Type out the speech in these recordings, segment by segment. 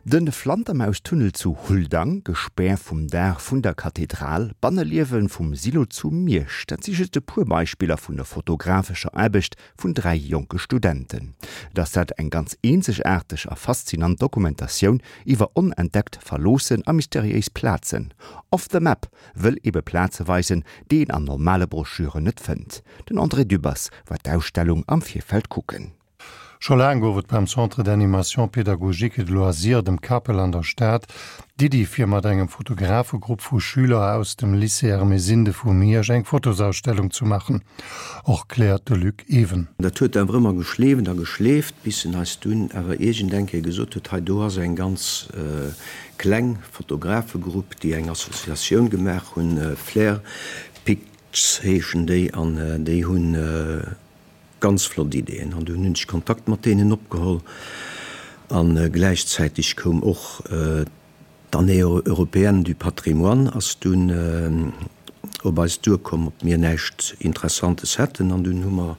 De Flantermaustunnel zu Huldang, Gespär vum Daach vun der Kathedral, Banneliewe vum Silo zu Miersch, dat si just e puer Beispiller vun der fotografescher Aarbecht vun 3 jonke Studenten. Et ass dat eng ganz eenzegaarteg a faszinant Dokumentatioun iwwer onentdeckt, verloossen a mysteriéis Plazen. Off the Map wëll ebe Plaze weisen, déi een an normale Broschüren net fënnt. Den André Dübbers war d'Ausstellung am Virfeld kucken. Scho laang gouf et beim Centre d'animation pédagogique et de loisirs, dem CAPEL an der Stad, d'Iddi fir mat engem Fotografegrupp vu Schüler aus dem Lycée Ermesinde vu Miersch eng Fotosausstellung zu maachen, erkläert de Luc Ewen. Dat huet awer ëmmer geschleeft a geschleeft, bis en eis dunn awer iergend eng Kéier gesot huet, hei do ass eng ganz kleng Fotografegrupp, déi eng Associatioun gemaach hunn, Flair Picts heeschen déi, an déi hunn Ganz flott Ideeën an dunn hunn ech Kontakt mat deenen opgeholl an gläichzäiteg koum och d'Année européenne du patrimoine ass dunn op eis duerkomm, ob mir näischt Interessantes hätten an dunn hu mer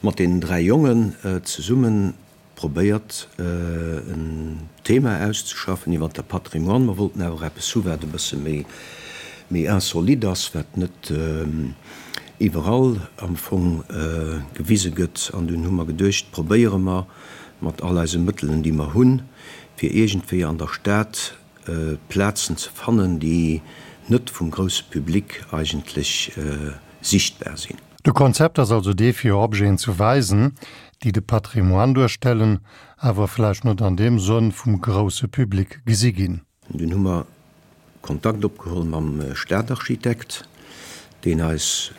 mat deenen 3 Jongen zesummen probéiert en Thema auszeschaffen iwwer de Patrimoine. Mer wollten awer och eppes hu wat e bësse méi méi insolite ass, wat net iwwerall am Fong gewise gëtt. An dunn hu mer geduecht, probéiere mer mat all eise Mëttelen déi mer hunn, fir iergendwéi an der Stad Plazen ze fannen, déi net vum grousse Public eigentlech sichtbar sinn. De Konzept ass also dee fir Objeten ze weisen, déi de Patrimoine duerstellen, awer vläicht net an deem Sënn vum grousse Public gesi ginn. Dunn hu mer Kontakt opgeholl mam Stadarchitekt, deen eis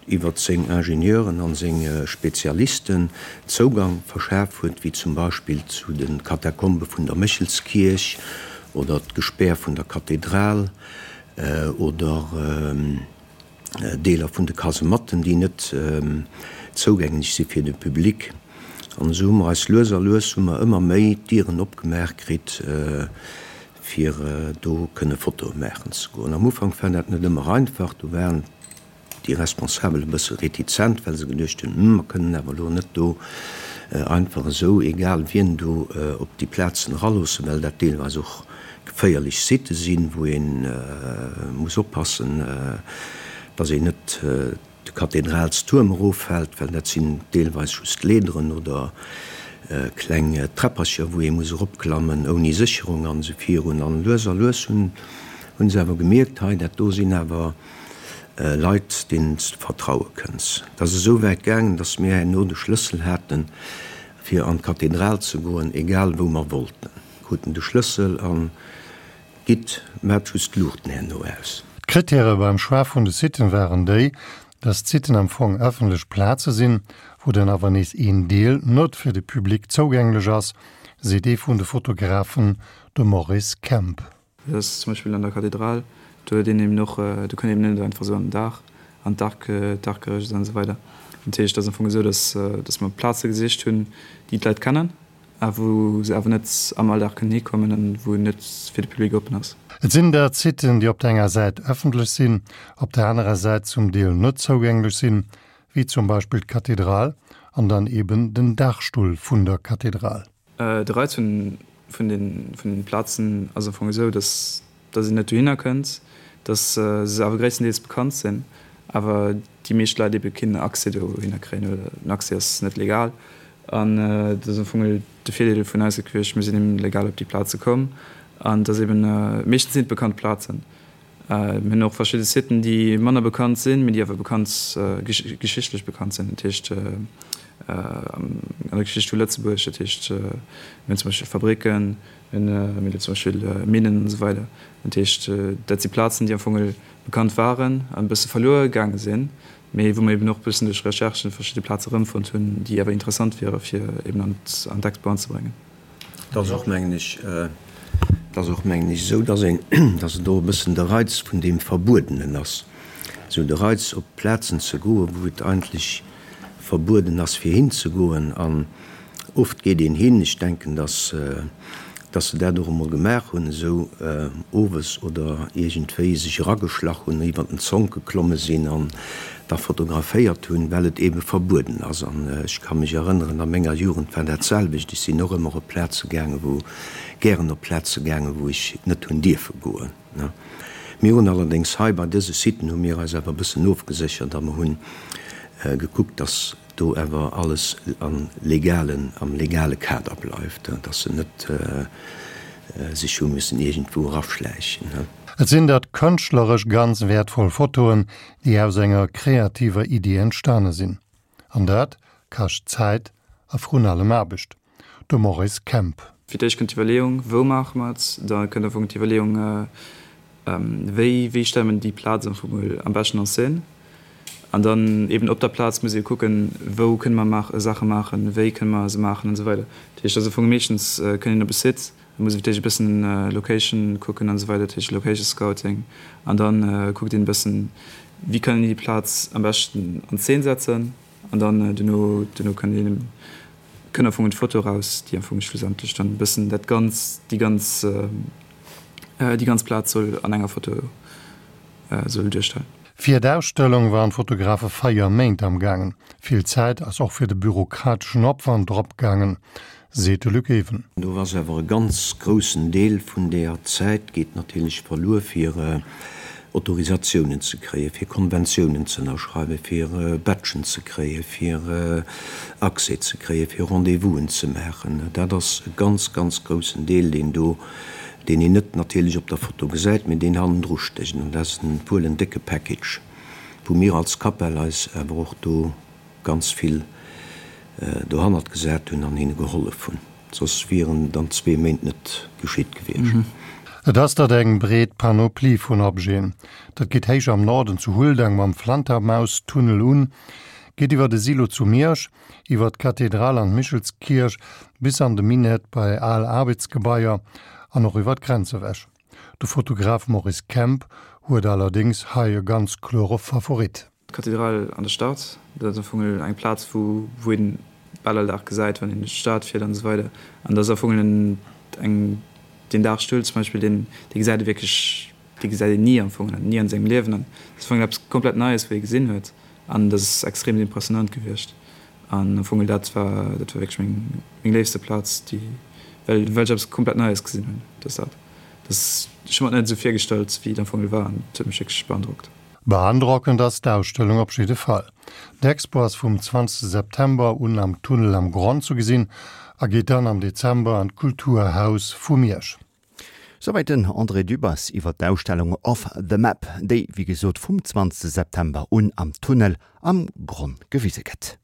iwwert seng Ingenieuren an seng Spezialisten Zougang verschaf huet, wéi zum Beispill zu de Katakombe vun der Méchelskierch oder d'Gespär vun der Kathedral oder Deeler vun de Kasematten, déi net zougänglech si fir de Public. An esou hu mer eis lues a lues hu mer ëmmer méi d'Dieren opgemaach kritt, fir do kënne Fotoe maachen ze goen. Am Ufank war dat net ëmmer einfach, do waren déi Responsabel e bësse retizent, well se geduecht hunn, Hm, mer kënnen awer elo net do einfach esou egal wien do op déi Plazen eraloossen, well dat deelweis och geféierlech Sitte sinn, wou ee muss oppassen, dass een net de Kathedralstuerm eroffält, well dat sinn deelweis just Leederen oder kleng Träppercher, wou ee muss eropklammen ouni Sécherung an esou virun. An lues a lues hunn se awer gemierkt, hei dat do sinn awer Leit, deenen s de vertraue kënns. Et ass esou wäit gaangen, dass mir herno de Schlëssel haten, fir an d'Kathedral ze goen, egal wou mer wollten. Kruten de Schlëssel an gitt, maat just d'Luuchten herno aus. D'Krittäre beim Choix vun de Siten waren déi, dass d'Siten am Fong ëffentlech Plaze sinn, wou dann awer nees een Deel net fir de Public zougänglech ass, seet ee vun de Fotografen, de Maurice Kemp. Dat ass zum Beispill an der Kathedral, do huet een eben och, do kënnt een eben net einfach esou an den Daach, an d'Arc, d'Archgerëscht an esou weider. Dat heescht, et ass am Fong esou, dass, dass mer Plaze gesicht hunn, déi d'Leit kennen, a wou se awer net am Alldag kënnen hikommen an wou net fir de Public oppen ass. Et sinn dat Siten, déi op der enger Säit ëffentlech sinn, op der anerer Säit zum Deel net zougänglech sinn, wéi zum Beispill d'Kathedral an dann eben den Daachstull vun der Kathedral. De Reiz vun vun den Plazen ass am Fong esou, dass dass een net dohinner kënnt, dass se awer gréisstendeels bekannt sinn, awer déi meescht Leit ebe keen Accès dohinner kréien oder den Accès ass net legal. An dat ass am Fong de Virdeel vun eis gewiescht, mir sinn eben legal op déi Plaze komm an et ass eben, meeschtens sinn et bekannt Plazen. Mir hunn och verschidde Siten, déi manner bekannt sinn, mee déi awer bekannt, geschichtlech bekannt sinn, dat heescht an der Geschicht vu Lëtzebuerg, dat heescht mir hunn zum Beispill Fabricken, Mir hunn zum Beispill Minnen an esou weider. Dat heescht, dat si Plazen, déi am Fong bekannt waren an e bësse verluer gaange sinn, mee wou mer eben och e bëssen duerch Recherchen verschidde Plaze erëmfonnt hunn, déi awer interessant wiere fir eben an d'Expo anzebréngen. Et ass och, mengen ech, et ass och, mengen ech, esou, dass een, dass et och e bëssen de Reiz vun deem Verbuedenen ass, esou de Reiz op Plazen ze goen, wou et eigentlech verbueden ass fir hinzegoen. An oft geet een hin, ech denken, dass. Dass se dat och emol gemaach hunn, esou owes oder iergendwéi sech erageschlach hunn, iwwer den Zonk geklomme sinn an da fotograféiert hunn, well et eebe verbueden ass. An ech ka mech erënneren, a menger Jugend war dat selwecht. Ech sinn och ëmmer op Plaze gaangen, wou, gären op Plaze gaangen, wou ech net hunn dierfe goen. Mir hunn allerdéngs hei bei dëse Siten hu mir eis awer e bëssen ofgeséchert a mer hunn gekuckt, dass do awer alles am legalen, am legale Kader bleift, dass se net sech hu müssen iergendwou eraschläichen. Et sinn dat kënschtleresch ganz wäertvoll Fotoen, déi aus enger kreativer Iddi entstane sinn. An dat kascht Zäit a vrun allem Aarbecht. De Maurice Kemp. Fir d'éischt kënnt d'Iwwerleeung, wou maache mer et? Da kënnt am Fong d'Iwwerleeung, wéi, wéi stelle mer déi Plaz am Fong mol am beschten en scène? An dann eben op der Plaz muss ee kucken, wou kënne mer maach, Saache maachen, wéi kënne mer se maachen an esou weider. Dat heescht, also am Fong meeschtens kënnt een op e Site, da muss ee fir d'éischt e bëssen Location kucken an esou weider, dat heescht Location Scouting. An da kuckt een e bëssen, wéi kann een déi Plaz am beschten an Zeen setzen. An dann duerno, duerno kënnt een, kënnt am Fong d'Foto eraus, déi am Fong schlussendlech dann e bëssen dat ganz, déi ganz, déi ganz Plaz soll an enger Foto soll duerstellen. Fir d'Ausstellung waren d'Fotografe 4 Méint am gaangen. Vill Zäit ass och fir de bürokrateschen Opwand drop gaangen, seet de Luc Ewen. Do ass awer e ganz groussen Deel vun deeër Zäit geet natierlech verluer fir Autorisatiounen ze kréien, fir Konventiounen ze ënnerschreiwen, fir Badgen ze kréien, fir Accès ze kréien, fir Rendez-vousen ze maachen. Dat ass e ganz, ganz groussen Deel, deen do, deen een net natierlech op der Foto gesäit, mee deen hannendru stécht. An dat ass wuel en décke Package, wou mir als Capel eis awer och do ganz vill dohannert gesat hunn an hinne gehollef hunn. Soss wieren dann zwee Méint net geschitt gewiescht. Et ass dat eng breet Panoplie vun Objeten. Dat geet héich am Norden zu Huldang mam Flantermaustunnel un, geet iwwer de Silo zu Miersch, iwwer d'Kathedral an d'Michelskierch bis an de Minett bei al Aarbechtsgebaier an och iwwer d'Grenz ewech. De Fotograf Maurice Kemp huet allerdéngs hei e ganz klore Favorit. D'Kathedral an der Stad, dat ass am Fong eng Plaz, wou wou een bal all Dag gesäit, wann een duerch d'Stad fiert an esou weider. An dat ass am Fong en eng deen Dagstull zum Beispill, deen dee gesäit ee wierklech, dee gesäit een ni am Fong, ni an sengem Liewen. An dat ass am Fong eppes komplett Neies, wou ee gesinn huet. An dat ass extrem impressionant gewiescht. An am Fong dat war dat war wierklech meng meng léifste Plaz, déi well well ech eppes komplett Neies gesinn hunn. Dat ass dat. Dat ass, ech hu mer et net esou virgestallt, wéi et am Fong war an et huet mech wierklech beandrockt. Beandrockend ass d'Ausstellung op jidde Fall. D'Expo ass vum 20 September un am Tunnel am Gronn zu gesinn a geet dann am Dezember an d'Kulturhaus vu Miersch. Souwäit den André Dübbers iwwer d'Ausstellung Off the Map, déi wéi gesot vum 20 September un am Tunnel am Gronn gewise gëtt.